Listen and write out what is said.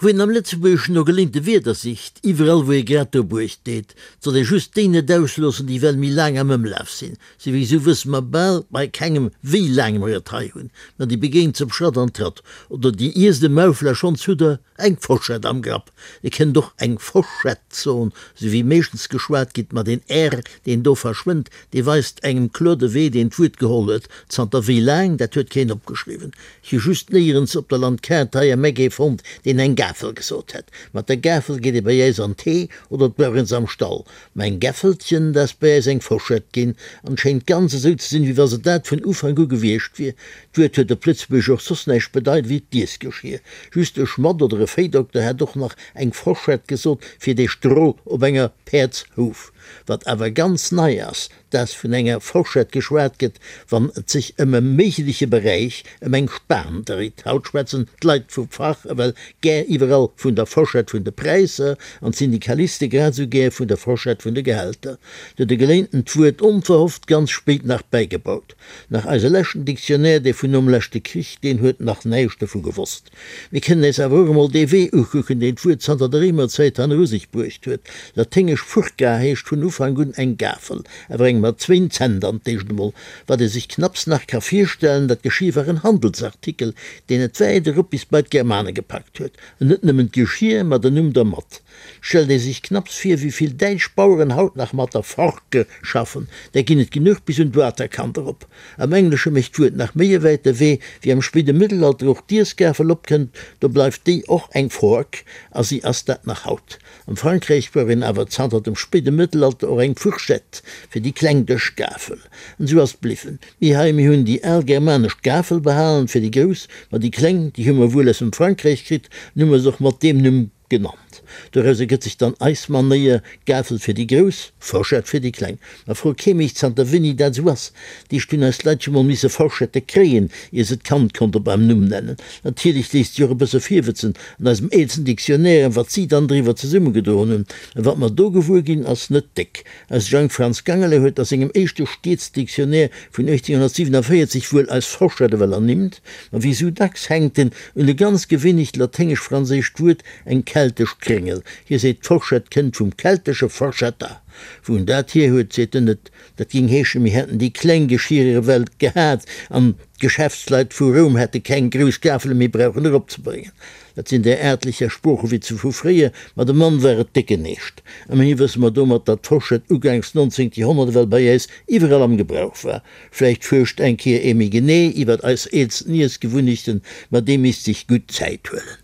Wou een am Lëtzebuergeschen no geléinte Wierder sicht, iwwerall wou ee grad dobuecht deet, 't soll ee just déi net ausloossen, déi well méi laang am Ëmlaf sinn. Souwisou wësse mer bal bei kengem wéi laang mer et hei hunn, ma déi begéint se op Schratt an Tratt. Oder déi iesst e Maufel a schonns hutt der eng Forschett am Grapp. Dir kënnt och eng Forschett soen, sou wéi meeschtens geschwat gitt, ma deen r, deen do verschwënnt, dee weist engem kloer de Wee, deen d'Wuert geholl huet. Zanter wéi laang, dat huet keen opgeschriwwen. Ech hu just néierens op der Landkaart hei am Eck ee fonnt, deen eng Gafel gesot hätt. Mat der Gafel geet ee bei äis an d'Hee oder et brauch een se am Stall. Mä eng Gäffelchen, dat ass bei äis eng Forschett ginn, an schéint ganz esou ze sinn, wéi wa se dat vun Ufank u gewiescht wier. D'Wuert huet op Lëtzebuergesch och soss näischt bedeit ewéi d'Iessgeschier. Just e Schmadd oder e Véidokter hätt och nach eng Forschett gesot fir dee Stroh op enger Päerdshouf. Wat awer ganz nei ass, dass vun enger Forschett geschwat gëtt, wann et sech ëm e méigleche Beräich, ëm eng Span dréit. Haut schwätzen d'Leit vum Fach ewell gär iwwerall vun der Forschett vun de Präisser an d'Syndikaliste grad esou gär vun der Forschett vun de Gehälter. Do de Geléinten d'Wuert onverhofft ganz spéit nach bäigebaut. Nach eise leschten Dictionnaire, dee vun nom leschte Krich, deen huet nach näischt dovu gewosst. Mir kënnen äis awer och emol dee Wee ukucken, deen d'Wuert zanter der Réimerzäit hanneru sech bruecht huet. Laténgesch furca heescht vun Ufank un eng Gafel, awer eng mat zwéin Zänn dann d'éischt emol. Wat ee sech knapps nach ka virstellen, dat Geschir war en Handelsartikel, deen et wäit erop bis bei d'Germane gepackt huet. An net nëmmen d'Geschir, ma den Numm dermat. Stellt ee sech knapps vir, wéi vill däitsch Baueren haut nach mat der Forke schaffen, där ginn et genuch bis un d'Waterkant erop. Am Englesche mécht d'Wuert nach méi e wäite Wee, wéi am spéide Mëttelalter och d'Iessgafel opkënnt, do bleift déi och eng Fork, a si ass dat nach haut. Am Frankräich brauch een awer zanter dem spéide Mëttelalter och eng Fourchette fir déi kleng Dëschgafel. An esou ass et bliwwen. Mir hei, mir hunn déi al germanesch Gafel behalen fir déi grouss, ma déi kleng, déi hu mer wuel aus dem Frankräich kritt an hu mer se och mat deem Numm Genannt. Doraus ergëtt sech dann eis Manéier, Gafel fir déi Grouss, Forschett fir déi Kleng. Ma fro kee mech, zanter wéini dat esou ass. D'éischt hunn eis Leit jo mol misse Forschette kréien, ier se d'Kand konnte beim Numm nennen. Natierlech léisst sech och e bësse virwëtzen an eisem eelsten Dictionnaire, wat si dann driwwer zesummegedroen hunn. A wat mer do gewuer ginn, ass net déck. Eise Jang Franz Gangele huet a sengem éischte Stiedsdictionnaire vun 1847 wuel eis Forschett ewell ernimmt, ma wéi sou dacks hänkt en un e ganz gewinnecht laténgesch-franséischt Wuert, eng keltesch Kréngel. Hie seet, d'Forschett kënnt vum keltesche forchetta. Wou en dat hier huet, seet en net. Dat géing heeschen, mir hätten déi kleng Geschierer ewell gehat an d'Geschäftsleit vu Roum hätte keng grouss Gafele méi brauchen eropzebréngen. Dat sinn där aartlecher Sproochewitze vu fréier, ma dem Mann war et décken Eescht. Ëmmerhi wësse mer domat, datt d'Forschett ugaangs 19. Joerhonnert ewell bei äis iwwerall am Gebrauch war. Vläicht fuerscht eng Kéier ee méi genee iwwert eis eelsten Iessgewunnechten, ma dee misst sech gutt Zäit huelen.